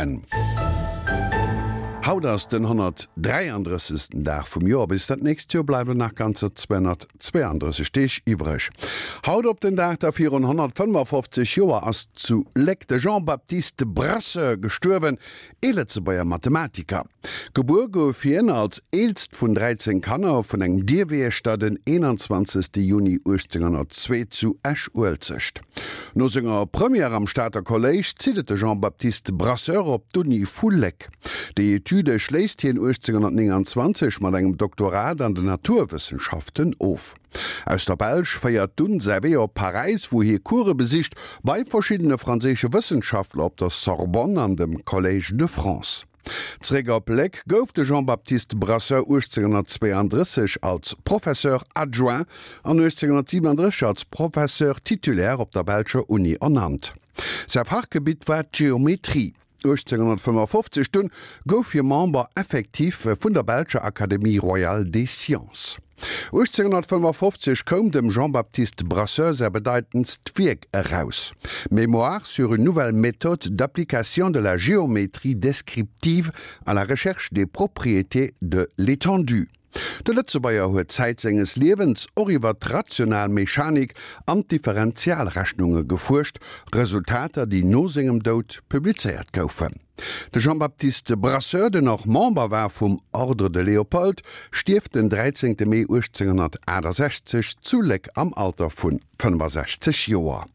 N. Haut ass den 133. Dag vum Joer. Bis dat nächst Joer bleiwen nach ganzer 232 Deeg iwwreg. Haut op den Dag da virun 155 Joer ass zu Léck de Jean-Baptiste Brasseur gestuerwen, ee Lëtzebuerger Mathematiker. Gebuer gouf hien als eelst vun 13 Kanner vun engem Dierwiechter den 21. Juni 1802 zu Esch-Uelzecht. No senger Première am Stater Kolléisch zitt et de Jean-Baptiste Brasseur op d'Uni vu Léck. Déi Etüde schléisst hien 1829 mat engem Doktorat an den Naturwëssenschaften of. Aus der Belsch féiert dunn säi Wee op Paräis, wou hie Course besicht bei verschiddene franséische Wëssenschaftler op der Sorbonne an dem Collège de France. Zeréck op Léck gouf de Jean-Baptiste Brasseur 1832 als Professeur adjoint an 1837 als Professeur titulaire op der belscher Uni ernannt. Säi Fachgebitt war d'Geometrie. 1855 dunn gouf hie Member effectif vun der belscher Académie royale des sciences. 1855 koum dem Jean-Baptiste Brasseur säi bedeitendst Wierk eraus, Mémoire sur une nouvelle méthode d'application de la géométrie descriptive à la recherche des propriétés de l'étendue. De Lëtzebuerger huet Zäit senges Liewens och iwwer d'rational Mechanik an d'Differentialrechnunge gefuerscht, Resultater, déi no sengem Doud publizéiert goufen. De Jean-Baptiste Brasseur, den och Member war vum Ordre de Léopold, stierft den 13 Mee 1868 zu Léck am Alter vu 65 Joer.